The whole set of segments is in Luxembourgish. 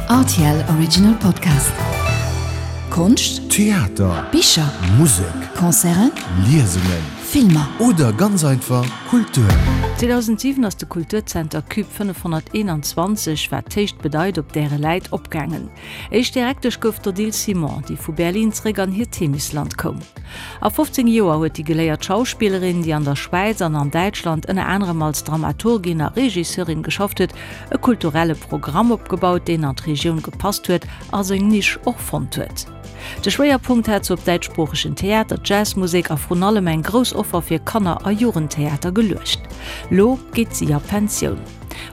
Rtl Original Podcast. Konscht, Theater, Bicher, Musek, Concerten, Liesungen, Filmer. Oder ganz einfach Kultur. 2007 ass de Kulturzenter Cube 521, wat d'Héicht bedeit, op däre Läit opgaangen. Éischt Direktesch gouf d'Odile Simon, déi vu Berlin zeréck an hiert Heemechtsland koum. A 15 Joer huet déi geléiert Schauspillerin, déi an der Schwäiz an an Däitschland ënner anerem als Dramaturgin a Regisseurin geschafft huet, e kulturelle Programm opgebaut, deen an d'Regioun gepasst huet a seng Nisch och fonnt huet. De Schwéierpunkt hat se op däitschsproochegen Theater, Jazzmusek a vrun allem eng grouss Offer fir Kanner a Jugendtheater geluecht. Lo geet si a Pensioun.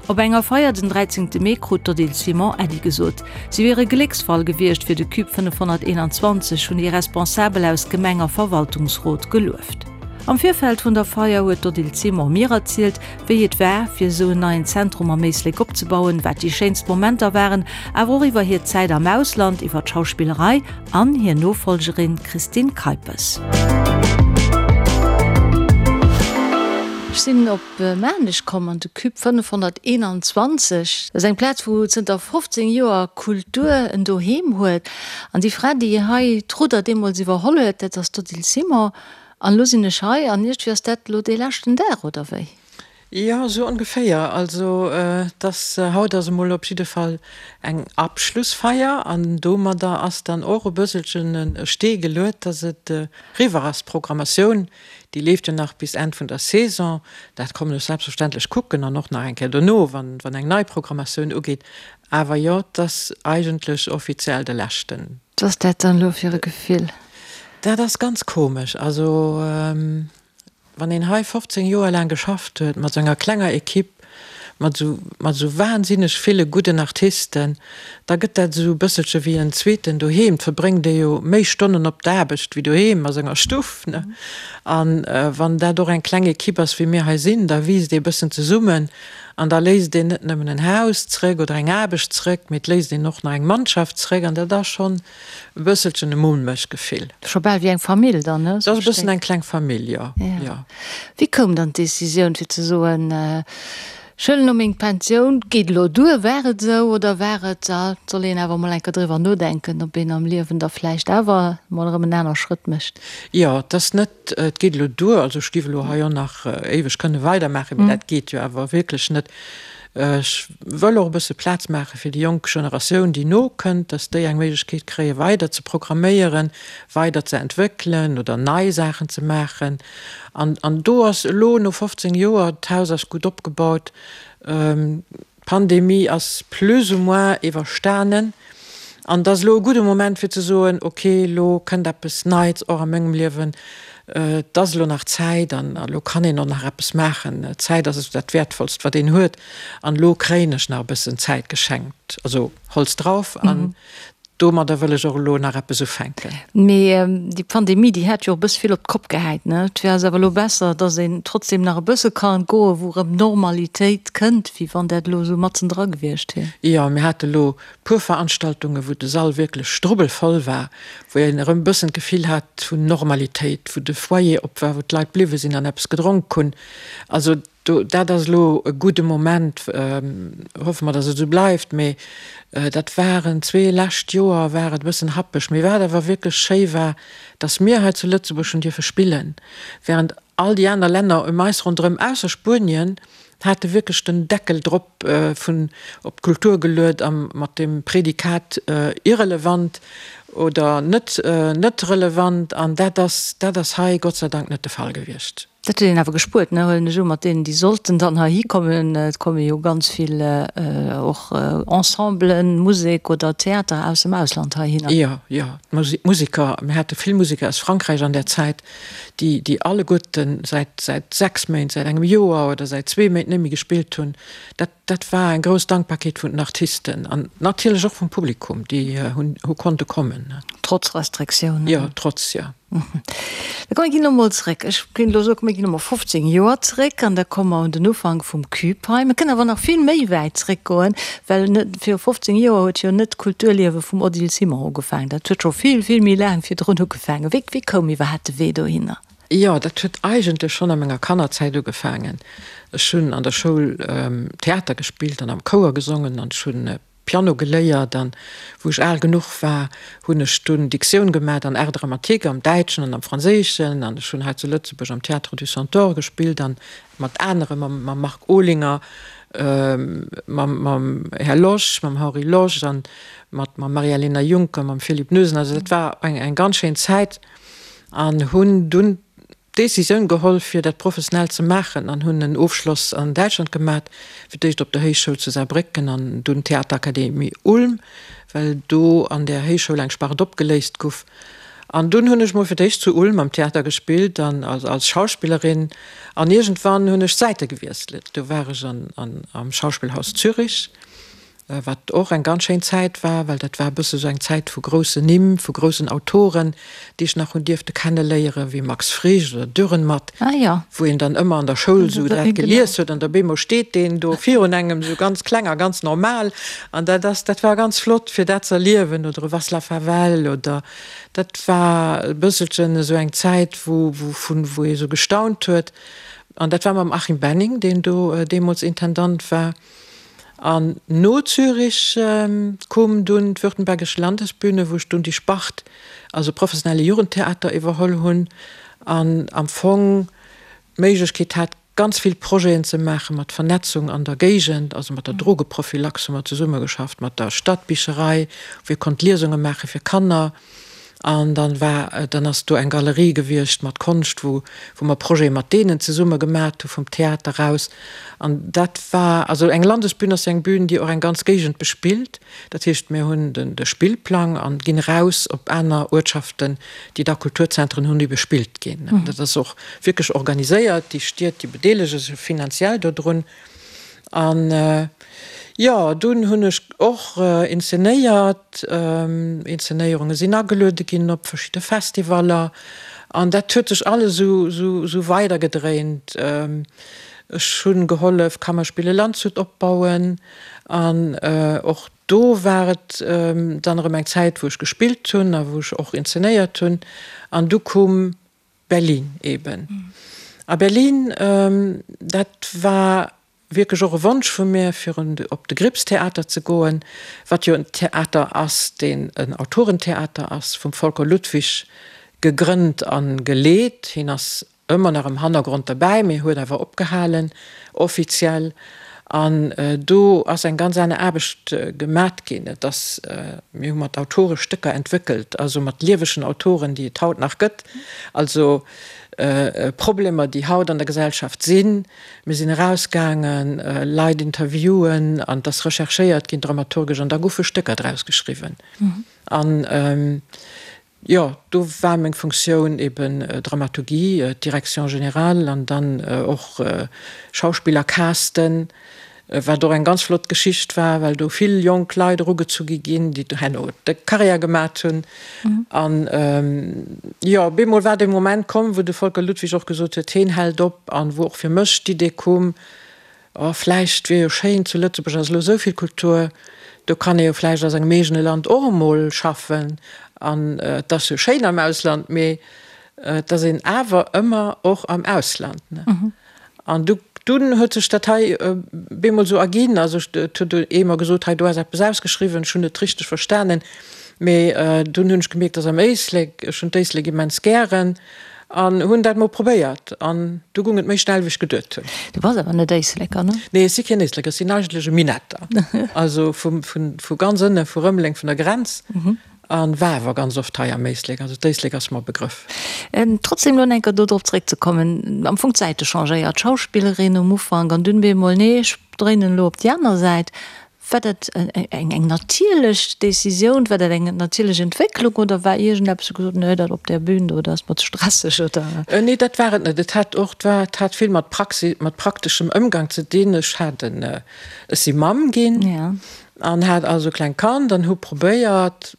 Op enger Feier den 13 Mee krut d'Odile Simon Äddi gesot. Si wier e Glécksfall gewiescht fir de Cube 521, hunn déi Responsabel aus Gemeng a Verwaltungsrot gelueft. Am Virfeld vun der Feier huet d'Odile Simon mir erzielt, wéi et war, fir esou en neien Zentrum am Éislek opzebauen, wat déi schéinst Momenter waren, awer och iwwer hir Zäit am Ausland, iwwer d'Schauspillerei an hir Nofollgerin Christine Keipes. Ech sinn op Maarnech komm an de Cube 521. Dat ass eng Plaz, wou zënter 15 Joer Kultur en Doheem huet. An déi Fra, déi hei d'Rudder deemools iwwerholl huet, dat ass d'Odile Simon. An elo sinn ech hei an iergendwéi ass dat elo dee leschten Dag, oder wéi? Jo, esou ongeféier. Also et ass, haut ass emol op jidde Fall eng Abschlussfeier an domadder ass dann och e bësselchen e Stee geluet, dass et eriwwer ass. D'Programmatioun, déi leeft jo nach bis Enn vun der Saison. Dat kommen ech selbstverständlech kucken an och nach eng Kéier dono, wann eng nei Programmatioun ugeet. Awer jo, et ass eigentlech offiziell de leschten. Wat ass dat dann elo fir e Gefill? Dat ass ganz komesch. Also wann een hei 15 Joer laang geschafft huet, mat esou enger klenger Equipe, mat esou, mat esou wahnsinneg ville gudden Artisten, da gëtt dat esou e bësselche wéi en zweeten Doheem. Et verbréngt ee jo méi Stonnen op der Aarbecht wéi doheem a senger Stuff, ne? An wann dat och eng kleng Equipe ass, wéi mir hei sinn, da wiisst ee bëssen zesummen an da léisst een net nëmmen en Haus zréck oder eng Aarbecht zréck, mee et léisst een och nach eng Mannschaft zréck an dat ass schonn E bësselchen e mulmegt Gefill. Scho bal wéi eng Famill dann, ne? Et ass e bëssen eng kleng Famill, jo, jo. Wéi koum dann d'Decisioun fir ze soen, ech huelen elo meng Pensioun, geet elo duer? War et esou oder war et, ah, et soll een awer mol eng Kéier driwwer nodenken, ob een am Liewen da vläicht awer mol erëm en aner Schrëtt mécht? Jo, et ass net, et geet elo duer. Also ech géif elo hei och nach éiweg kënne weidermaachen, mee dat geet jo awer wierklech net. Ech wëll och e bësse Plaz maache fir déi jonk Generatioun, déi nokënnt, dass déi eng Méiglechkeet kréie weider ze programméieren, weider ze entwéckelen oder nei Saachen ze maachen. An, an do ass elo no 15 Joer, d'Haus ass gutt opgebaut, d'Pandemie ass plus ou moins iwwerstanen an et ass elo e gudde Moment fir ze soen, ok, elo kënnt eppes Neits och a mengem Liewen, Et ass elo nach Zäit an elo kann een och nach eppes maachen. Zäit ass esou dat Wäertvollst, wat een huet. An elo kréien ech nach e bëssen Zäit geschenkt. Also Holz drauf an domadder wëll ech och elo nach eppes ufänken. Mee déi Pandemie, déi hat jo och e bësse vill op d'Kopp gehäit, ne? Et wär awer elo besser, datt een trotzdem nach e bësse kann goen, wou erëm Normalitéit kënnt, wéi wann dat elo esou matzendra gewiescht wier. Jo, mir hate elo Puer Veranstaltunge wou de Sall wierklech strubbelvoll war, wou een erëm e bëssen d'Gefill hat vun Normalitéit, wou de Foyer op war, wou d'Leit bliwwe sinn an eppes gedronk hunn. Also do, dat ass elo e gudde Moment, hoffe mer, datt et esou bleift, mee dat waren zwee lescht Joer war et e bëssen happeg. Mee wat awer wierklech schéi war, datt mir hei zu Lëtzebuerg hunn dierfe spillen, während all déi aner Länner ëm eis ronderëm, ausser Spuenien, hate wierklech den Deckel drop vun op d'Kultur geluet a mat dem Prädikat irrelevant oder net net relevant. An dat ass dat ass hei Gott sei Dank net de Fall gewiescht. Dat huet een awer gespuert, ne, huelen ech u, mat deenen, déi sollten dann heihi kommen. Et komme jo ganz vill och Ensemblen, Musek oder Theater aus dem Ausland heihinner. Jo, jo, d'Museker, mir hate vill Museker aus Frankräich an där Zäit, déi, déi alleguerten säit, säit 6 Méint, säit engem Joer oder säit zwee Méint net méi gespillt hunn, dat, dat war eng grouss Dankbarkeet vun den Artisten an natierlech och vum Publikum, déi hunn, hu konnte kommen. Trotz Restriktiounen? Jo, trotz, jo. Da komm, mir ginn elo mol zréck. Ech kéint elo soen, mir ginn elo mol 15 Joer zréck an da komme mer un den Ufank vum Cube hei. Mir kënnen awer nach vill méi wäit zréckgoen, well net viru 15 Joer huet jo net d'Kulturliewe vum Odile Simon ugefaangen. Dat huet scho vill, vill méi laang virdrun ugefaangen. Wéi, wéi koum iwwerhaapt de Wee dohinner? Jo, dat huet eigentlech schonn a menger Kannerzäit ugefaangen. Ech hunn an der Schoul Theater gespillt an am Chouer gesongen an ech hunn. Piano geléiert an wou ech al genuch war, hunn ech dunn Diktioun gemat an Art dramatique am Däitschen an am Franséischen an ech hunn hei zu Lëtzebuerg am Théâtre du Centaure gespillt an mat anere, mam mam Marc Olinger, mam mam Här Losch, mam Henri Losch an mat mam Maria-Lena Juncker, mam Philippe Noesen. Also dat war eng eng ganz schéin Zäit an hunn dunn d'Décisioun geholl fir dat professionell ze maachen an hunn en Ofschloss an Däitschland gemat, fir d'éischt op der Héichschoul zu Saarbrécken an dunn Theaterakademie Ulm, well do an där Héichschoul eng Spart opgeléist guff. An dunn hunn ech mol fir d'éischt zu Ulm am Theater gespillt an als Schauspillerin an iergendwann hunn ech d'Säite gewiesselt. Do war ech an am Schauspielhaus Zürich. Wat och eng ganz schéin Zäit war, well dat war e bësse sou eng Zäit vu groussen Nimm, vu groussen Autoren, déi ech nach hunn dierfte kenneléieren, wéi Max Frisch oder Dürrenmatt, wou een dann ëmmer an der Schoul sou dat gelies huet an op eemol steet deen do virun engem sou ganz kleng a ganz normal an dat ass, dat war ganz flott fir dat ze erliewen oder e Václav Havel oder dat war e bësselchen esou eng Zäit, wou, wou vun, wou ee sou gestaunt huet an dat war mam Achim Benning, deen do deemools Intendant war. An no Zürich koom dunn d'Württembergische Landesbühne, wou ech dunn déi Spart, also professionelle Jugendtheater, iwwerholl hunn an am Fong d'Méiglechkeet hat, ganz vill Projeten ze maache mat Vernetzung an der Géigend, also mat der Drogeprophylaxe hu mer zesummegeschafft, mat der Stadbicherei, wou ee konnt Liesunge maache fir Kanner. An dann war, dann ass do eng Galerie gewiescht mat Konscht, wou, wou mer Projete mat deenen zesumme gemat hu vum Theater aus. An dat war, also eng Landesbün ass jo eng Bühn, déi och eng ganz Géigend bespillt. Dat heescht, mir hunn den, de Spillplang an ginn eraus op aner Uertschaften, déi da Kulturzentren hunn, déi bespillt ginn. Dat ass och wierklech organiséiert. Déi Stied, déi bedeelege sech finanziell dodrun. An jo, dunn hunn ech och inzenéiert. Inzenéierunge sinn ageluede ginn op verschidde Festivaller. An dat huet sech alles esou, esou, esou weidergedréint. Ech hunn gehollef Kammerspiele Landshut opbauen. An och do war et dann erëm eng Zäit, wou ech gespillt hunn a wou ech och inzenéiert hunn. An du koum Berlin eben. A Berlin, dat war wierklech och e Wonsch vu mir, fir op de Grips-Theater ze goen, wat jo en Theater ass, deen en Autorentheater ass, vum Volker Ludwig gegrënnt a geleet. Hien ass ëmmer nach am Hannergrond derbäi, mee huet awer opgehalen, offiziell. An do ass eng ganz aner Aarbecht gemat ginn. Et ass, mir hu mat Autore Stécker entwéckelt, also mat liewegen Autoren, déi et haut nach gëtt, also Problemer, déi haut an der Gesellschaft sinn. Mir sinn erausgaangen, Leit interviewen an et ass recherchéiert ginn dramaturgesch an da goufe Stécker draus geschriwwen. An Jo, do war meng Funktioun eben Dramaturgie, d'Direction générale an dann och Schauspiller casten, wat och eng ganz flott Geschicht war, well do vill jonk Leit erugezu gi ginn, déi herno de Carrière gemat hunn. An jo, op eemol war dee Moment komm, wou de Volker Ludwig och gesot huet, heen hält op an wou och fir mech d'Idee koum, Oh, vläicht wier jo schéin, zu Lëtzebuerg ass elo esou vill Kultur, do kann ee jo vläicht a sengem eegene Land och emol schaffen. An et ass jo schéin am Ausland, mee et ass een awer ëmmer och am Ausland, ne? An du, dunn huet sech dat hei bemol esou erginn. Also et huet ee mer gesot, hei do ass eppes ausgeschriwwen, ech hunn net richteg verstanen, mee dunn hunn ech gemierkt, dass am Éislek, ech hunn d'Éislek immens gären, An hunn dat mol probéiert an du gung et méi schnell wéi ech geduet hunn. Du bass awer net Éisleker, ne? Nee, ech si keen Éisleker, ech sinn eigentlech e Minetter, also vu vu ganz ënne vu Rëmeleng, vun der Grenz, an war awer ganz oft hei am Éislek, also d'Éislek ass mer e Begrëff. Trotzdem elo enker do drop zréckzekommen, am Fong d'Säite changéiert, Schauspillerin um Ufank an dunn bemol, nee ech dréinen elo op déi aner Säit. War dat eng natierlech Decisioun, war dat eng natierlech Entwécklung oder war iergendeppes, wou gesot hutt, nee, dat op där Bühn do, dat ass mer ze stresseg oder? Nee, dat war et net. Et hat och, et hat vill mat Praxis, mat prakteschem Ëmgang ze dinn. Ech hat en, ech si Mamm ginn an hat also e klengt Kand an hu probéiert.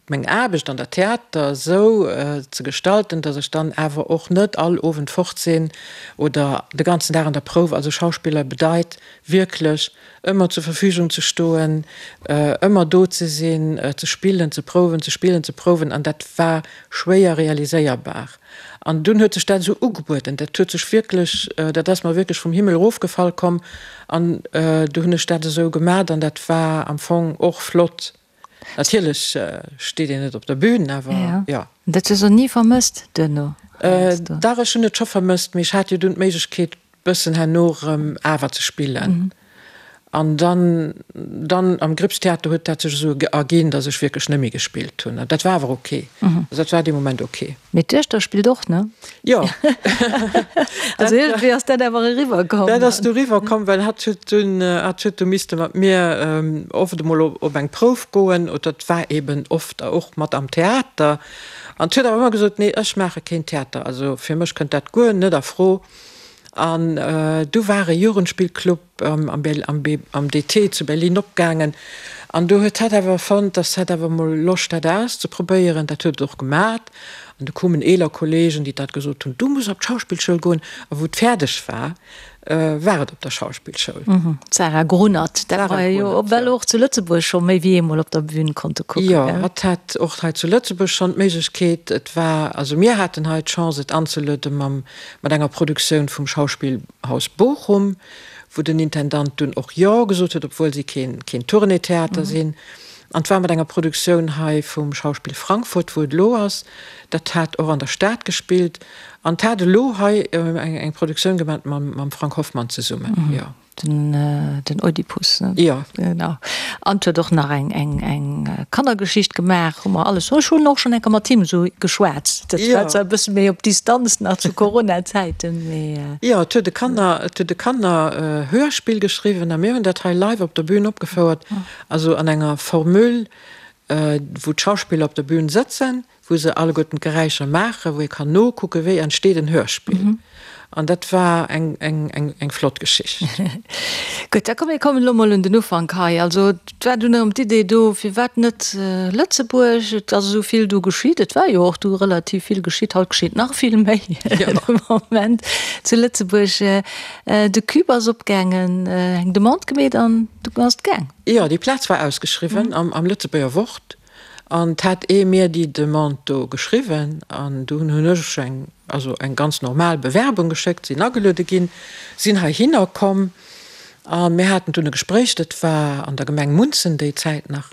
meng Aarbecht an der Theater esou ze gestalten, datt ech dann awer och net all Owend fort sinn oder de ganzen Dag an der Prouf. Also Schauspiller bedeit wierklech ëmmer zur Verfügung ze stoen, ëmmer do ze sinn, ze spillen, ze prouwen, ze spillen, ze prouwen an dat war schwéier realiséierbar. An dunn huet sech dat esou ugebueden, dat huet sech wierklech, dat ass mer wierklech vum Himmel erofgefall komm an du hunn ech dat esou gemat an dat war am Fong och flott. Natierlech steet een net op der Bühn, awer jo. Dat hues de ni vermësst duerno? Dach, ech hunn et scho vermësst, mee ech hat jo dunn d'Méiglechkeet bëssen herno erëm awer ze spillen. An dann, dann am Gripstheater huet dat sech esou erginn, datt ech wierklech net méi gespillt hunn. An dat war awer ok. Also dat war dee Moment ok. Mee d'Duechter spillt och, ne? Jo. Also iergendwéi ass dat awer eriwwer komm. Dat ass du eriwwer komm, well hatt huet dunn, hatt huet du misste mat mir oft emol op eng Prouf goen, oder et war eben oft och mat am Theater. An huet awer ëmmer gesot, Nee, ech maache keen Theater, also fir mech kënnt dat guer net a Fro. An du war e Jugendspillclub am DT zu Berlin opgaangen. An do huet hatt awer fonnt, dass hatt awer mol Loscht hätt auszeprobéieren. Dat huet et och gemat. An du koumen eeler Kollegen, déi dat gesot hunn, du muss op d'Schauspillschoul goen. A wou et fäerdeg war, war et op der Schauspillschoul. D'Sarah Grunert, dat mer jo well och zu Lëtzebuerg scho méi wéi eemol op der Bühn konnte kucken. Jo, hatt hat och hei zu Lëtzebuerg schonn d'Méiglechkeet. Et war, also mir haten hei d'Chance et anzeluede mam mat enger Produktioun vum Schauspielhaus Bochum, wou den Intendant dunn och Jo gesot huet, obwuel si keen keen Tournée-Theater sinn. An 't war mat enger Produktioun hei vum Schauspiel Frankfurt, wou et elo ass. Dat hat och an der Stad gespillt. An 't hat elo hei eng Produktioun gemat mam Frank Hoffmann zesummen, jo. Den, den Oedipus, ne? Jo. Genau. An huet och nach eng, eng, eng Kannergeschicht gemaach, hu mer alles. Ech hunn och schonn eng Kéier mat him esou geschwat. Dat war zwar e bësse méi op Distanz nach zu Corona-Zäiten, mee. Jo, et huet e Kanner, et huet e Kanner-Hörspill geschriwwen a mir hunn dat hei live op der Bühn opgefouert, also an enger Formule, wou d'Schauspiller op der Bühn sëtzen, wou se alleguerten d'Geräischer maachen, wou ee kann nokucken, wéi entsteet en Hörspill. An dat war eng, eng, eng, eng flott Geschicht. Gutt, da komm mir kommen elo mol un den Ufank hei. Also et war dunn erëm d'Idee do, firwat net Lëtzebuerg? Et ass esou vill do geschitt. Et war jo och du relativ vill geschitt. Haut geschitt nach vill méi de Moment zu Lëtzebuerg. De Cube ass opgaangen, eng Demande gemeet an du ass et gaang. Jo, déi Plaz war ausgeschriwwen am, am Lëtzebuerger Wort. An 't hat ee mir déi Demande do geschriwwen an dunn hunn ech eng, also eng ganz normal Bewerbung geschéckt, sinn ageluede ginn, sinn heihinner komm a mir haten dunn e Gespréich, dat war an der Gemeng Munzen déi Zäit nach,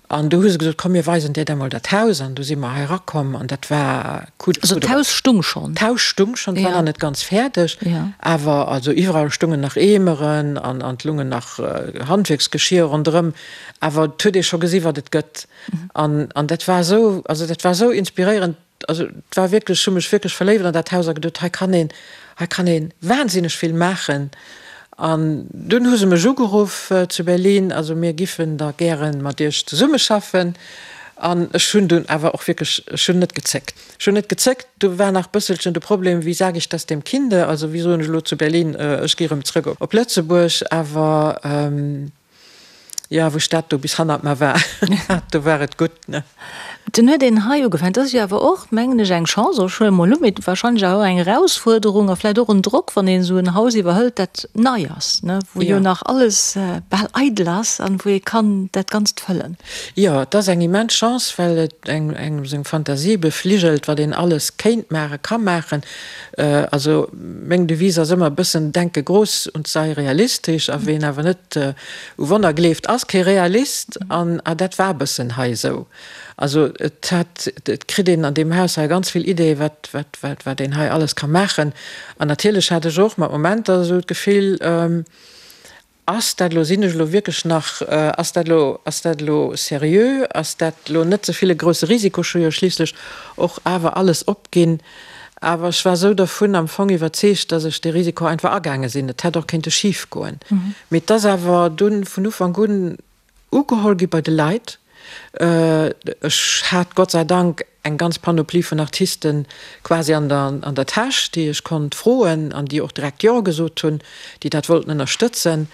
an du hu se gesot, komm mir weisen dir da mol dat Haus an du si mer hei erakomm an dat war coup de foudre. Also d'Haus stung schonn? D'Haus stung schonn, et war nach net ganz fäerdeg, awer also iwwerall stungen nach Eemeren an an 't lungen nach Handwierksgeschier ronderëm. Awer et huet ee scho gesi wat et gëtt. An, an dat war esou, also dat war esou inspiréierend, also et war wierklech, ech hu mech wierklech verléift an dat Haus a geduet, hei kann een, hei kann ee wahnsinneg vill maachen. An dunn hu se mech ugeruff zu Berlin, also mir giffen da gäre mat Iech zesummeschaffen. An ech hunn dunn awer och wierklech, ech hunn net gezéckt. Ech hunn net gezéckt. Do war nach bësselchen de Problem, wie sage ich das dem Kinde, also wéi soen ech elo zu Berlin, ech gi erëm zrëck op Lëtzebuerg. Awer Jo, wou ech dat do bis hannert mer war, do war et gutt, ne? Dunn huet een hei ugefaangen. Dat ass jo awer och, mengen ech, eng Chance, ech huele mol u, mee wahrscheinlech awer och eng Erausfuerderung a vläicht och en Drock, wann een esou en Haus iwwerhëlt, dat nei ass, ne, wou jo nach alles bal eidel ass an wou ee kann dat Ganzt fëllen. Jo, et ass eng immens Chance, well et engem seng Fantasie befligelt, wat een alles kéint maachen, ka maachen. Also meng Devise ass ëmmer e bëssen, Denke groß und sei realistisch. A ween awer net u Wonner gleeft, ass kee Realist. An dat war e bëssen hei esou. Also et hat, et kritt een an deem Haus hei ganz vill Ideeë wat, wat, wat, wat een hei alles ka maachen. An natierlech hat ech och mat Momenter esou d'Gefill, Ass dat elo, sinn ech elo wierklech nach, ass dat elo, ass dat elo seriö, ass dat elo net ze vill e grousse Risiko, ech hu jo schliisslech och awer alles opginn. Awer ech war esou dervun am Fong iwwerzeegt, datt ech dee Risiko einfach agaange sinn. Et hätt och kéinte schif goen. Mee et ass awer dunn vun Ufank un Ugeholl gi bei de Leit. Ech hat Gott sei Dank eng ganz Panoplie vun Artisten quasi an der an der Täsch, déi ech konnt froen an déi och direkt Jo gesot hunn, déi dat wollten ënnerstëtzen.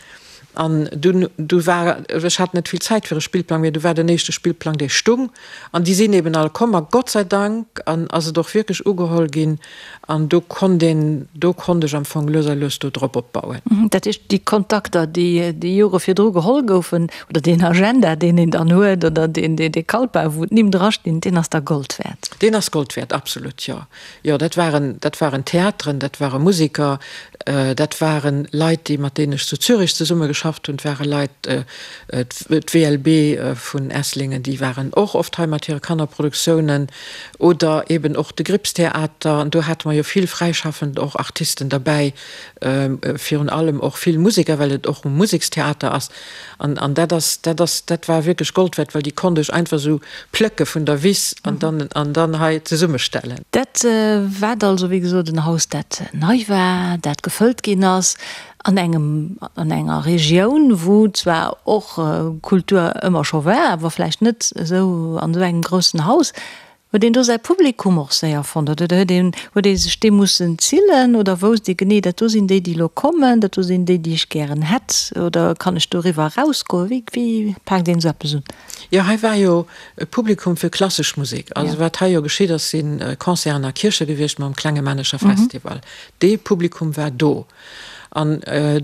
An dunn, du war, ech hat net vill Zäit fir e Spillplang, mee du war den éischte Spillplang, dee stung. An déi sinn eben all komm a Gott sei Dank an ass et och wierklech ugeholl ginn. An do konnt een, do konnt ech am Fong lues a lues do drop opbauen. Dat heescht, déi Kontakter, déi déi Jore virdru geholl goufen, oder deen Agenda, deen een dann huet, oder deen, dee Kalpa, wou d'Nimm drastinn, deen ass da Gold wäert? Deen ass Gold wäert, absolut, jo. Jo, dat waren, dat waren Theateren, dat ware Museker, dat ware Leit, déi, mat deenen ech zu Zürich zesumme geschafft hunn, et ware Leit, d'WLB vun Esslingen, déi waren och oft hei mat hire Kannerproduktiounen, oder eben och de Gripstheater, an do hate mer jo vill fräischaffend och Artisten derbäi, virun allem och vill Museker, well et och e Musekstheater ass. An, an dat ass, dat ass, dat war wierklech Gold wäert, well déi konnt ech einfach esou plécke vun der Wiss an dann, an dann hei zesummestellen. Dat wat also, wéi gesot, en Haus, dat nei war, dat gefëllt ginn ass an engem, an enger Regioun, wou zwar och Kultur ëmmer scho war, awer vläicht net esou an esou engem groussen Haus. Huet een do säi Publikum och séier fonnt oder huet een, huet ee sech dee mussen zillen oder wousst ee genee, dat do sinn déi, déi elo kommen, dat do sinn déi, déi ech gären hätt oder kann ech doriwwer erausgoen? Wéi, wéi paakt een esou eppes un? Jo, hei war jo e Publikum fir klassesch Musek. Also wat hei jo geschitt ass, si Concerten a Kierche gewiescht mam Klenge Männecher Festival. Dee Publikum war do an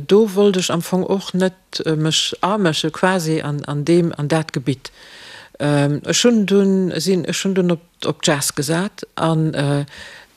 do wollt ech am Fong och net mech amësche quasi an an deem an dat Gebitt. Ech hunn dunn sinn ech hunn dunn op op Jazz gesat an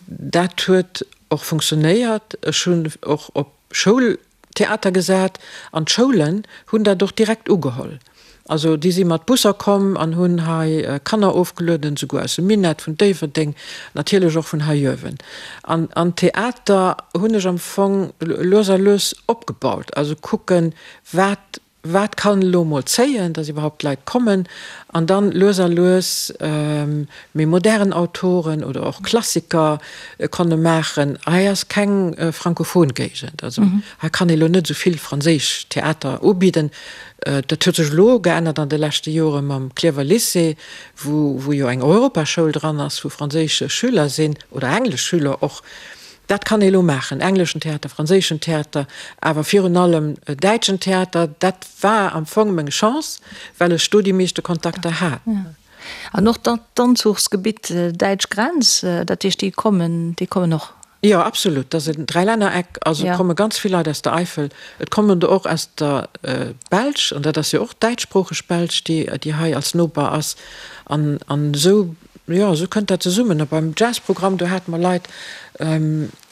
dat huet och funktionéiert. Ech hunn och op Schoultheater gesat an d'Schoulen hunn dat och direkt ugeholl. Also déi si mat Busser komm an hunn hei Kanner ofgelueden, souguer aus dem Minett, vun Déifferdeng, natierlech och vun hei uewen. An an Theater hunn ech am Fong lues a lues opgebaut, also kucken, wat wat kann elo mol zéien, dass iwwerhaupt Leit kommen, an dann lues a lues méi modern Autoren oder och Klassiker konne maachen. Hei ass keng frankophon Géigend, also hei kann ee lo net esou vill franséisch Theater ubidden. Dat huet sech elo geännert an de leschte Jore mam Klierwer Lycée, wou wou jo eng Europaschoul dran ass, wou franséisch Schüler sinn oder englesch Schüler och. Dat kann ee elo maachen, engleschen Theater, franséischen Theater, awer virun allem däitschen Theater. Dat war am Fong meng Chance, well ech do déi meeschte Kontakter hat. An och d'Anzuchsgebitt däitsch Grenz, dat heescht déi kommen, déi kommen och? Jo, absolut. Dat ass en Dräilännereck. Also et komme ganz vill Leit aus der Eifel. Et kommen der och aus der Belsch, an dat ass jo och däitschsproocheg Belsch, déi déi hei als Noper ass. An an esou, jo, esou kënnt dat zesummen. A beim Jazzprogramm, do hate mer Leit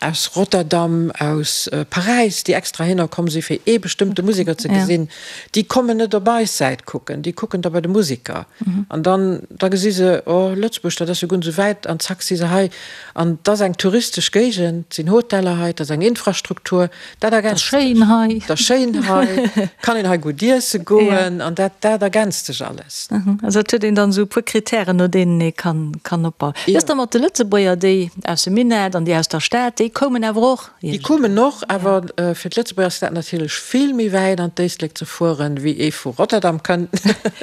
aus Rotterdam, aus Paräis, déi extra hinner komm si fir ee bestëmmte Museker ze gesinn. Déi kommen net op eis Säit kucken, déi kucken da bei de Museker. An dann da gesi se, oh Lëtzebuerg, dat ass jo guer net esou wäit, an zack si se hei. An 't ass eng touristesch Géigend, 't sinn Hoteller hei, 't ass eng Infrastruktur, dat ergänzt sech. 't ass schéin hei. 't ass schéin hei, kann een hei gutt iesse goen an dat, dat ergänzt sech alles. Also et huet een dann esou e puer Kritären, no deenen ee kann, kann opbauen. Wéi ass da mat de Lëtzebuerger, déi aus dem Minett an déi aus der Stad, déi koumen awer och? Déi koumen och, awer fir d'Lëtzebuerger ass dat natierlech vill méi wäit an d'Éislek ze fueren, wéi ee vu Rotterdam kënnt.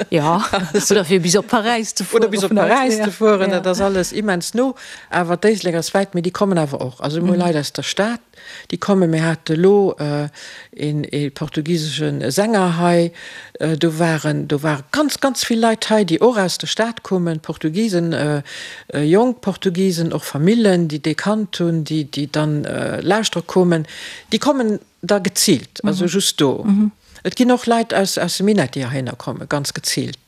Jo, oder fir bis op Paräis ze fueren. Oder bis op Paräis ze fueren, dat ass alles immens no. Awer d'Éislek ass wäit, mee déi kommen awer och. Also mir hu Leit aus der Stad, déi kommen. Mir hate elo een ee portugisesche Sänger hei. Do waren, do ware ganz, ganz vill Leit hei, déi och aus der Stad koumen, Portugisen, Jonk Portugisen, och Famillen, déi dee kannt hunn, déi, déi dann lauschtere koumen, déi kommen da geziilt, also just do. Et ginn och Leit aus, aus dem Minett, déi heihinner kommen, ganz geziilt.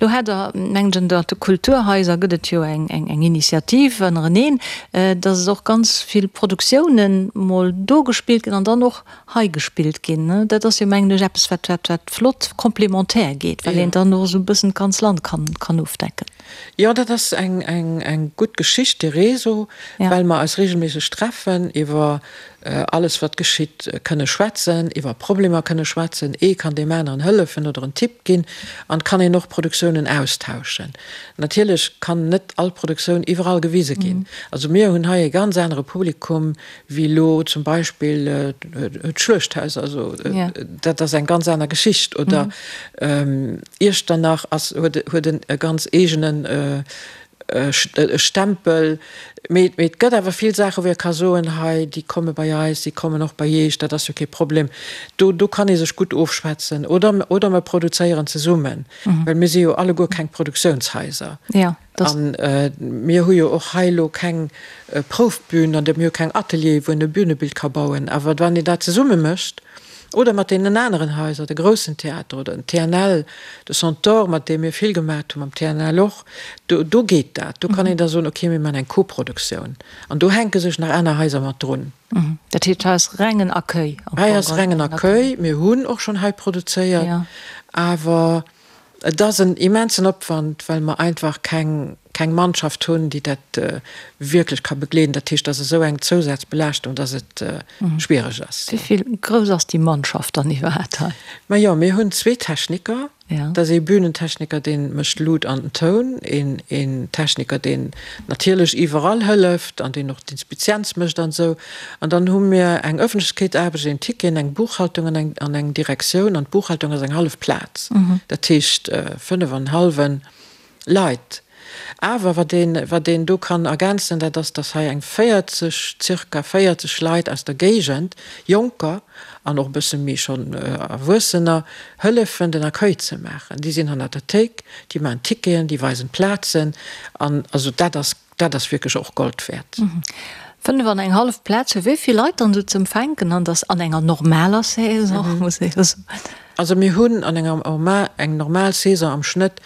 Lo hat Der, mengen ech, ënnert de Kulturhaiser gëtt et jo eng, eng, eng Initiativ ënnereneen, dass et och ganz vill Produktiounen mol do gespillt ginn an dann och hei gespillt ginn. Dat ass jo, mengen ech, eppes, wat, wat, wat flott complémentaire geet, well een dann och esou e bëssen d'ganz Land kann, kann ofdecken. Jo, dat ass eng, eng, eng gutt Geschicht, dee Réseau, well mer eis regelméisseg treffen, iwwer alles wat geschitt kënne schwätzen, iwwer Problemer kënne schwätzen, ee kann deem aneren hëllefen oder en Tipp ginn an et kann een och Produktiounen austauschen. Natierlech kann net all Produktioun iwwerall gewise ginn. Also mir hunn hei e ganz anere Publikum wéi elo zum Beispill d'Schluechthaus, also dat ass eng ganz aner Geschicht oder Iechternach ass, huet, huet en e ganz eegenen. e Stempel. Mee et gëtt awer vill Saachen, wou ee ka soen, hei, déi komme bei eis, déi kommen och bei Iech, dat ass jo kee Problem. Do, do kann ee sech gutt ofschwätzen. Oder, oder mer produzéieren zesummen, well mir si jo alleguer keng Produktiounshaiser. A mir hu jo och hei elo keng Proufbün an mir hu keng Ateliere wou een e Bünebild ka bauen. Awer wann een dat zesumme mécht oder mat deenen aneren Haiser, de groussen Theater oder den TNL, de Centaure, mat deem mir vill gemaacht hunn, mam TNL och, do do geet dat. Do kann een da soen, okay, mir maachen eng Koproduktioun. An do hänke sech nach aner Haiser mat drun. Dat heescht, hei ass rengen Accueil am Fong? Hei ass rengen Accueil. Mir hunn och schonn hei produzéiert, awer Et ass en immensen Opwand, well mer einfach keng, keng Mannschaft hunn, déi dat wierklech ka begleeden. Dat heescht, et ass esou eng Zousazbelaaschtung, dass et schwiereg ass. Wéi vill grouss ass déi Mannschaft dann iwwerhaapt hei? Majo, mir hunn zwee Techniker. Dat ass ee Bühnentechniker, dee mécht d'Lut an den Toun, een, een Techniker, deen natierlech iwwerall hëlleft an deen och d'Inspizienz mécht an esou. An dann hu mir eng Ëffentlechkeetsaarbecht, een Ticket, eng Buchhaltung an eng, an eng Direktioun. An d'Buchhaltung ass eng hallef Plaz, dat heescht 5 an hallwen Leit. Awer wat een, wat een do kann ergänzen, dat ass, dass hei eng 40, zirka 40 Leit aus der Géigend, Jonker an och e bësse méi schonn Erwuessener, hëllefen den Accueil ze maachen. Déi sinn hannert der Théik, déi maachen d'Ticketen, déi weisen d'Plazen. An also dat ass Dat ass wierklech och Gold wäert. 5 an eng hallef Plaz fir wéi vill Leit dann esou ze empfänken an dass an enger normaler Saison, muss ee jo soen. Also mir hunn an enger eng normal Saison am Schnëtt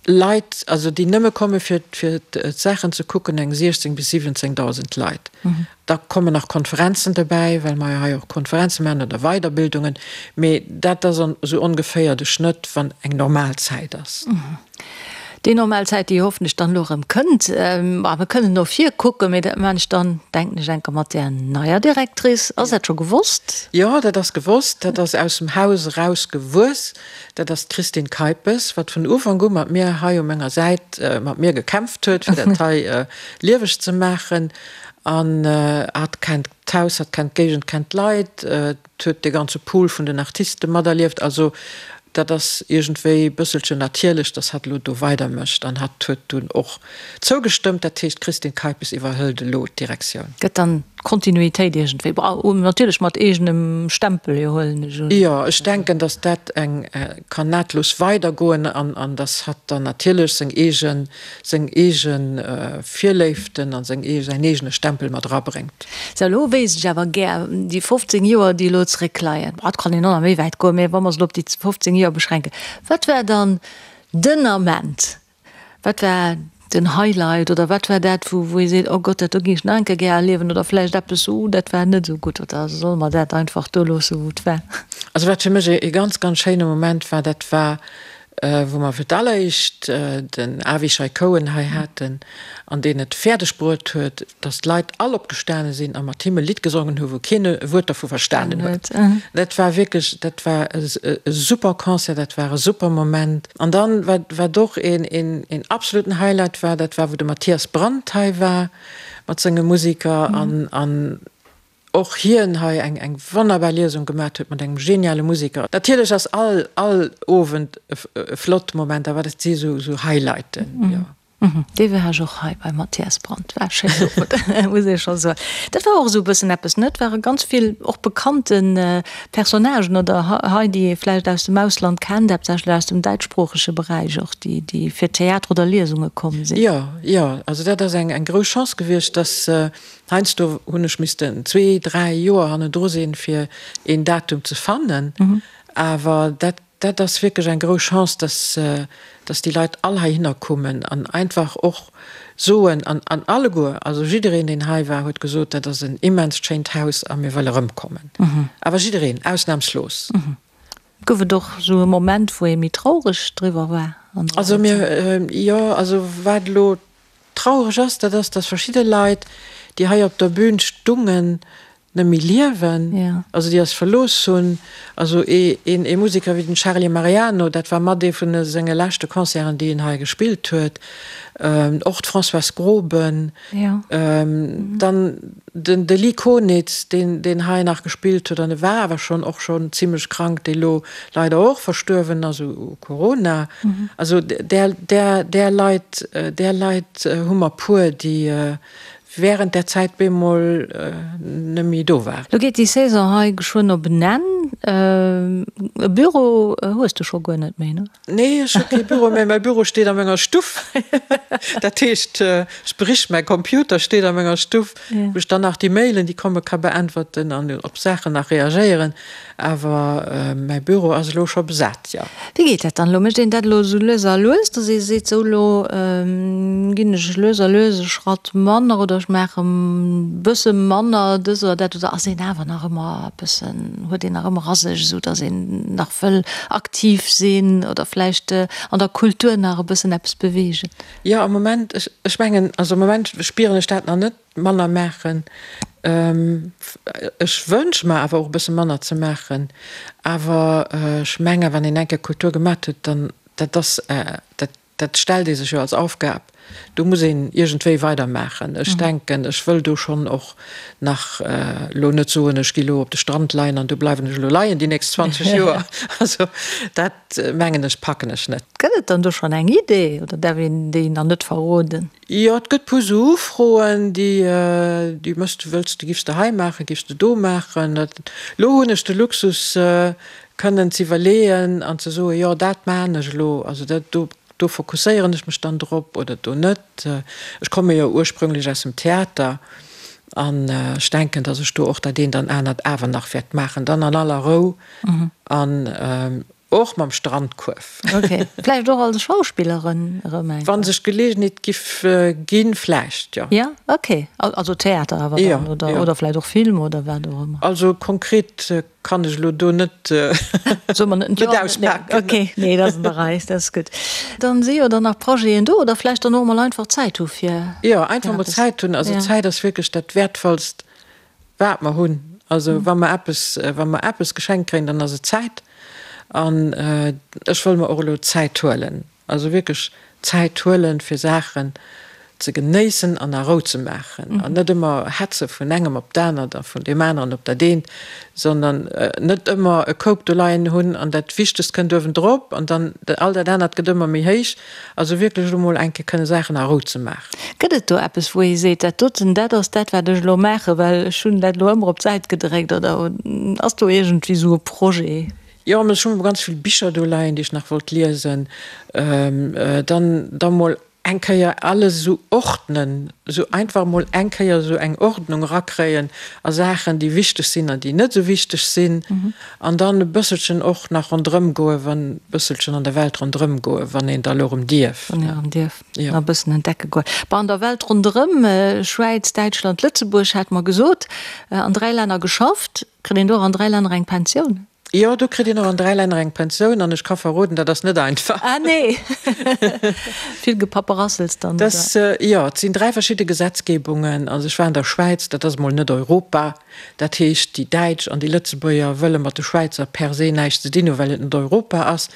Leit, also déi nëmme komme fir fir d'Saachen ze kucken, eng 16 bis 17.000 Leit. Da kommen nach Konferenzen dobäi, well mer jo hei och Konferenze maachen oder Weiderbildungen. Mee dat ass esou ongeféier de Schnëtt, wann eng normal Zäit ass. Déi normal Zäit, déi hoffentlech dann elo erëm kënnt. A mir kënnen no vir kucken, mee dat maachen ech dann, denken ech, enker mat där neier Directrice. Ass dat scho gewosst? Jo, dat ass gewosst. Dat ass aus dem Haus eraus gewuess. Dat ass d'Christine Keipes, wat vun Ufank u mat mir hei u menger Säit mat mir gekämpft huet, fir dat hei lieweg ze maachen. An hatt kennt d'Haus, hatt kennt d'Géigend, kennt d'Leit. huet dee ganze Pool vun den Artiste materlieft. Also dat ass iergendwéi e bësselchen natierlech, datt hatt elo do weidermécht. An hatt huet dunn och zougestëmmt. Dat heescht, d'Christine Keipes iwwerhëlt elo d'Direktioun. Gëtt dann d'Kontinuitéit iergendwéi, bon, natierlech mat eegenem Stempel, jo, huelen ech un. Jo, ech denken, datt dat eng kann nahtlos weidergoen an an datt hatt dann natierlech seng eegen, seng eege Virléiften a seng säin eegene Stempel mat erabréngt. Sou, elo wéisst ech awer gär, déi 15 Joer, déi elo zeréckleien, et kann een och nach méi wäit goen, mä wa mer se elo op déi 15 Joer beschränken, wat war dann den Ament, wat war den Highlight oder wat war dat, wou wou ee seet, oh Gott, dat do géing ech nach eng Kéier gär erliewen oder vläicht eppes, uh, dat war net esou gutt oder solle mer dat einfach do loosse wou et war? Also wat fir mech e ganz, ganz schéine Moment war, dat war wou mer fir d'alleréischt den Avishai Cohen hei haten an deen et fäerdeg bruet huet, datt d'Leit all opgestane sinn a mat him e Lidd gesongen hu wou keen e Wuert dervu verstanen huet. Dat war wierklech, dat war e super Concert, dat war e super Moment. An dann, wat wat och een een absoluten Highlight war, dat war wou de Matthias Brandt hei war mat senge Musiker an an och hien hei eng eng wonnerbar Liesung gemat huet mat engem geniale Musiker. Natierlech ass all all Owend e flott Moment, awer dat si sou sou Highlighten, jo. Dee war ech och hei beim Mathias Brandt, war e schéinen Owend, muss ee scho soen. Dat war och esou e bëssen eppes, ne? Et ware ganz vill och bekannte Personnagen oder hei, déi ee vläicht aus dem Ausland kennt, haaptsächlech aus dem däitschsproochege Beräich och, déi déi fir Theater oder Liesunge komm sinn. Jo, jo, also dat ass eng eng grouss Chance gewiescht, dass Heiansdo hunn ech missten zwee, dräi Joer hannendru sinn, fir een Datum ze fannen. Awer dat, dat ass wierklech eng grouss Chance, dass, dass déi Leit all heihinner kommen an einfach och soen, an, an alleguer, also jiddereen, deen hei war, huet gesot, dat ass en immenst schéint Haus a mir wëlle erëmkommen. Awer jiddereen, ausnamslos. Gouf et och esou e Moment, wou ee méi traureg driwwer war an der Also mir, jo, also wat elo Traureg ass, dat ass, dass verschidde Leit, déi hei op der Bühn stungen, net méi liewen, also déi eis verlooss hunn. Also ee Museker wéi den Charlie Mariano, dat war mat ee vun senge leschte Concerten, déi en hei gespillt huet. Och d'Françoise Groben, dann den de Lee Konitz, deen deen hei nach gespillt huet, an e war awer schonn och schonn zimlech krank, dee lo leider och verstuerwen ass u Corona. Also där där där Leit där Leit hu mer puer, déi während där Zäit bemol net méi do waren. Lo geet déi Saison hei geschwënn op en Enn. E Büro hues de scho guer net méi, ne? Nee, ech hu kee Büro méi. Mäi Büro steet a menger Stuff. Dat heescht, sprich mäi Computer steet a menger Stuff, wou ech dann nach déi Mailen, déi komme ka beäntwerten an op Saachen nach reagéieren. Awer mäi Büro ass elo scho besat, jo. Wéi geet dat dann elo? Mécht een dat elo esou lues a lues, datt ee seet, sou elo ginn ech lues a lues e Schratt manner oder ech maache bësse manner dës oder dat? Oder ass een awer nach ëmmer e bëssen, huet een nach ëmmer a sech, esou datt een nach wëll aktiv sinn oder vläicht an der Kultur nach e bëssen eppes beweegen? Jo, am Moment, ech mengen, also am Moment spieren ech dat nach net. Manner maachen. Ech wënsche mer awer och e bësse manner ze maachen. Awer ech menge wann een eng Kéier Kultur gemat huet, dann dat ass, dat dat stellt ee sech jo als Aufgab, do muss een iergendwéi weidermaachen. Ech denken, ech wëll do schonn och nach elo net soen, ech gi lo op de Strand leien an do bleiwen ech elo leien déi nächst 20 Joer. Also dat mengen ech packen ech net. Gëtt et dann do schonn eng Idee oder däerf een déi nach net verroden? Jo, et gëtt puer sou Ufroen, déi, déi mëss de, wëlls de, giffs de hei maachen, giffs de do maachen. Elo hunn ech de Luxus, kënnen z'iwwerleeën an ze soen, jo, dat maachen ech elo, also dat do, do fokusséieren ech mech dann drop oder do net. Ech komme jo ursprünglech aus dem Theater an ech denken, datt ech do och dat eent an anert awer nach wäert maachen, dann an aller Rou an Och mam Strandkuerf. Ok. Vläicht och als Schauspillerin erëm eng Kéier? Wa sech d'Geleegenheet giff ginn, vläicht, jo. Ja, ok. Also Theater awer dann, oder, oder vläicht och Film oder wat och ëmmer. Also konkret kann ech elo do net, Soe mer net auspaken. Ok, nee, dat ass an der Rei, dat ass gutt. Dann si jo dann nach Projeten do, oder vläicht dann och emol einfach Zäit hu fir. Jo, einfach emol Zäit hunn. Also Zäit ass wierklech dat Wäertvollst. Wat mer hunn. Also wa mer eppes, wa mer eppes geschenkt kréien, dann ass et Zäit. An ech wëll mer och elo Zäit huelen, also wierklech Zäit huelen, fir Saachen ze genéissen an a Rou ze maachen an net ëmmer hetze vun engem op d'anert a vun deem aneren op dat eent, sondern net ëmmer e Koup do leien hunn an dat Wichtegst kënnt uewendrop an dann all dat anert gëtt ëmmer méi héich. Also wierklech elo mol eng Kéier kënne Saachen a Rou ze maachen. Gëtt et do eppes, wou ee seet, dat doten, dat ass dat, wat ech elo maachen, well ech hunn dat elo ëmmer op d'Säit gedréckt? Oder ass do iergendwéi esou e Projet? Jo, ech hu ganz vill Bicher do leien, déi ech nach wollt liesen. Dann da mol eng Kéier alles esou ordnen, esou einfach mol eng Kéier esou eng Ordnung erakréien a Saachen, déi wichteg sinn an déi net esou wichteg sinn. An dann e bësselchen och nach ronderëm goen, wann, bësselchen an der Welt ronderëm goen, wann een da lo erëm dierf. Wann een erëm dierf, nach e bëssen entdecke goen. Bon, an der Welt ronderëm, Schwäiz, Däitschland, Lëtzebuerg, hat mer gesot, an 3 Länner geschafft. Kritt een do och an 3 Länner eng Pensioun? Jo, do kritt een och an 3 Länner eng Pensioun an ech ka verroden, dat ass net einfach. Ah nee! Vill Gepapperassels dann, oder? Das, jo, et sinn 3 verschidde Gesetzgebungen. Also ech war an der Schwäiz, dat ass emol net Europa. Dat heescht, déi Däitsch an déi Lëtzebuerger wëlle mat de Schwäizer per se näischt ze dinn hunn, well et net Europa ass.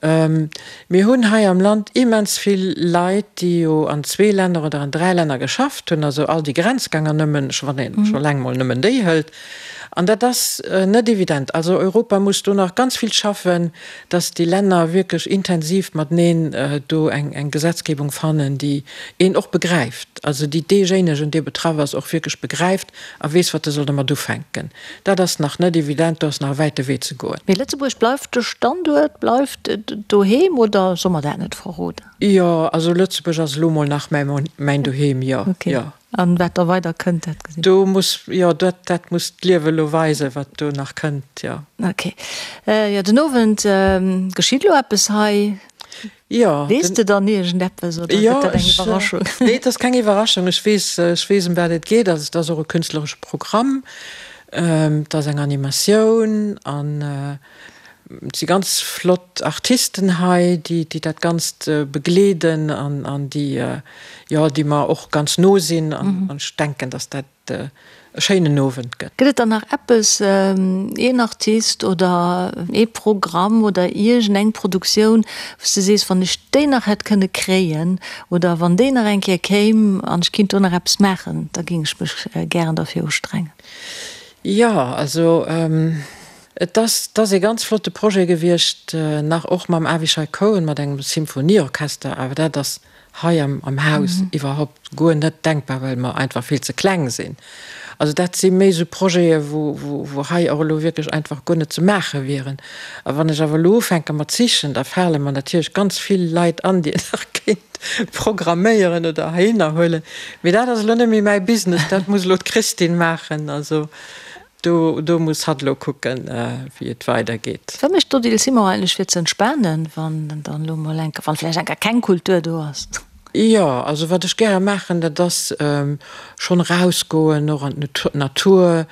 Mir hunn hei am Land immens vill Leit, déi jo an zwee Länner oder an dräi Länner geschafft hunn, also all déi Grenzgänger nëmmen, wann ee scho eleng mol nëmmen déi hëlt. An dat ass net evident. Also Europa muss do nach ganz vill schaffen, dass déi Länner wierklech intensiv mateneen do eng Gesetzgebung fannen, déi een och begräift, also déi deejéinegen, dee betraff ass, och wierklech begräift a weess, wat e soll domat ufänken. Dat ass nach net evident, do ass nach e wäite Wee ze goen. Mee Lëtzebuerg bleift de Standuert, bleift doheem, oder soll mer dat net verroden? Jo, also Lëtzebuerg ass elo mol nach mäin Doheem, jo, jo. An wat da weider kënnt, dat gesi mer. Do muss, jo, dat, dat muss d'Liewe elo weisen, wat do nach kënnt, jo. Ok. Jo, den Owend geschitt elo eppes hei. Jo. Weess de dann iergendeppes oder gëtt dat eng Iwwerraschung? Nee, et ass keng Iwwerraschung. Ech weess, ech weess ëm wat et geet. Also et ass och e künstleresche Programm. Et ass eng Animatioun an et si ganz flott Artisten hei, déi, déi dat Ganzt begleeden an, an déi, jo, déi mer och ganz no sinn. An ech denken, datt dat. e schéinen Owend gëtt. Gëtt et dann nach eppes, een Artist oder ee Programm oder iergend eng Produktioun, wou s de sees, wann ech déi nach hätt kënne kréien oder wann déi nach eng Kéier kéim an ech kinnt do nach eppes maachen, da géing ech mech gären derfir ustrengen? Jo, also et ass, et ass ee ganz flotte Projet gewiescht, nach och mam Avishai Cohen, mat engem Symphonieorchester, awer dat ass hei am Haus iwwerhaupt guer net denkbar, well mer einfach vill ze kleng sinn. Also dat si méi esou Projete wou hei och elo wierklech einfach guer net ze maache wieren. A wann ech awer elo ufänke mat sichen, da fale mer natierlech ganz vill Leit an, déi een nach kéint programméieren oder heihinner huelen. Mee dat ass elo net méi mäi Business, dat muss elo d'Christine maachen. Also Do, do muss hatt elo kucken, wéi et weidergeet. Wat mécht d'Odile Simon eigentlech fir ze entspanen, wann dann elo mol eng, wann vläicht eng Kéier keng Kultur do ass? Jo, also wat ech gäre maachen, dat ass schonn erausgoen, och an d'Natur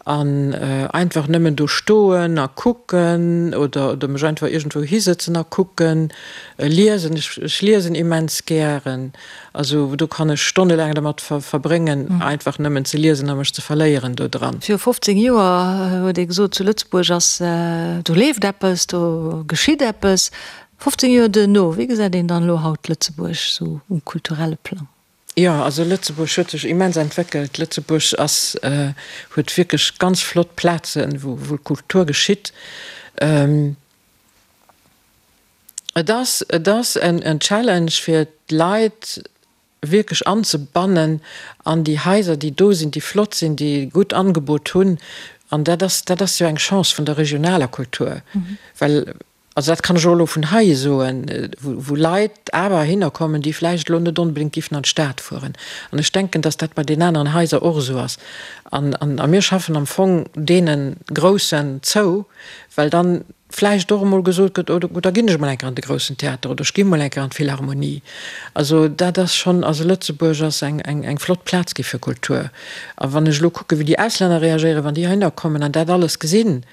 an einfach nëmmen do stoen a kucken oder oder mech einfach iergendwou hisëtzen a kucken, liesen. Ech, ech liesen immens gären. Also do kann ech stonnelaang dermat verbréngen, einfach nëmmen ze liesen a mech ze verléieren do dran. Viru 15 Joer huet ee gesot, zu Lëtzebuerg ass, do leeft eppes, do geschitt eppes. 15 Joer duerno, wéi gesäit een dann elo haut Lëtzebuerg sou um kulturelle Plang? Jo, also Lëtzebuerg huet sech immens entwéckelt. Lëtzebuerg ass, huet wierklech ganz flott Plazen, wou Kultur geschitt. Et ass, et ass en Challenge fir d'Leit wierklech anzebannen an déi Haiser, déi do sinn, déi flott sinn, déi e gutt Angebot hunn. An dat ass, dat ass jo eng Chance vun der regionaler Kultur, well, also dat kann ech och elo vun hei soen, wou Leit awer heihinner kommen, déi vläicht elo net onbedéngt giffen an d'Stad fueren. An ech denken, dass dat bei den aneren Haiser och esou ass. An, a mir schaffen am Fong deene Groussen zou, well dann vläicht och emol gesot gëtt, oh da ginn ech emol eng Kéier an de Groussen Theater oder ech ginn emol eng Kéier an d'Philharmonie. Also dat ass schonn, also Lëtzebuerg ass eng, eng, eng flott Plaz gi fir Kultur. A wann ech elo kucken, wéi déi Auslänner reagéieren, wann déi heihinner kommen an dat alles gesinn,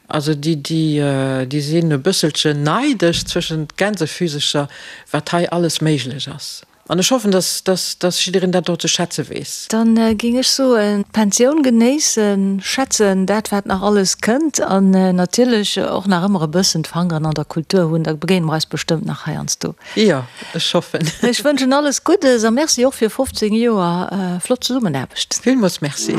also déi, déi, déi sinn e bësselchen neidesch zwëschent Gänsefüsecher, wat hei alles méiglech ass. An ech hoffen, dass, dass, dass jiddereen dat och ze schätze weess. Dann géing ech soen, d'Pensioun genéissen, schätzen dat wat nach alles kënnt an natierlech och nach ëmmer e bëssen d'Fangeren an der Kultur hunn. Da begéine mer eis bestëmmt nach heiansdo. Jo, ech hoffen. Ech wënschen alles Guddes a Merci och fir 15 Joer flott Zesummenaarbecht. Villmools Merci.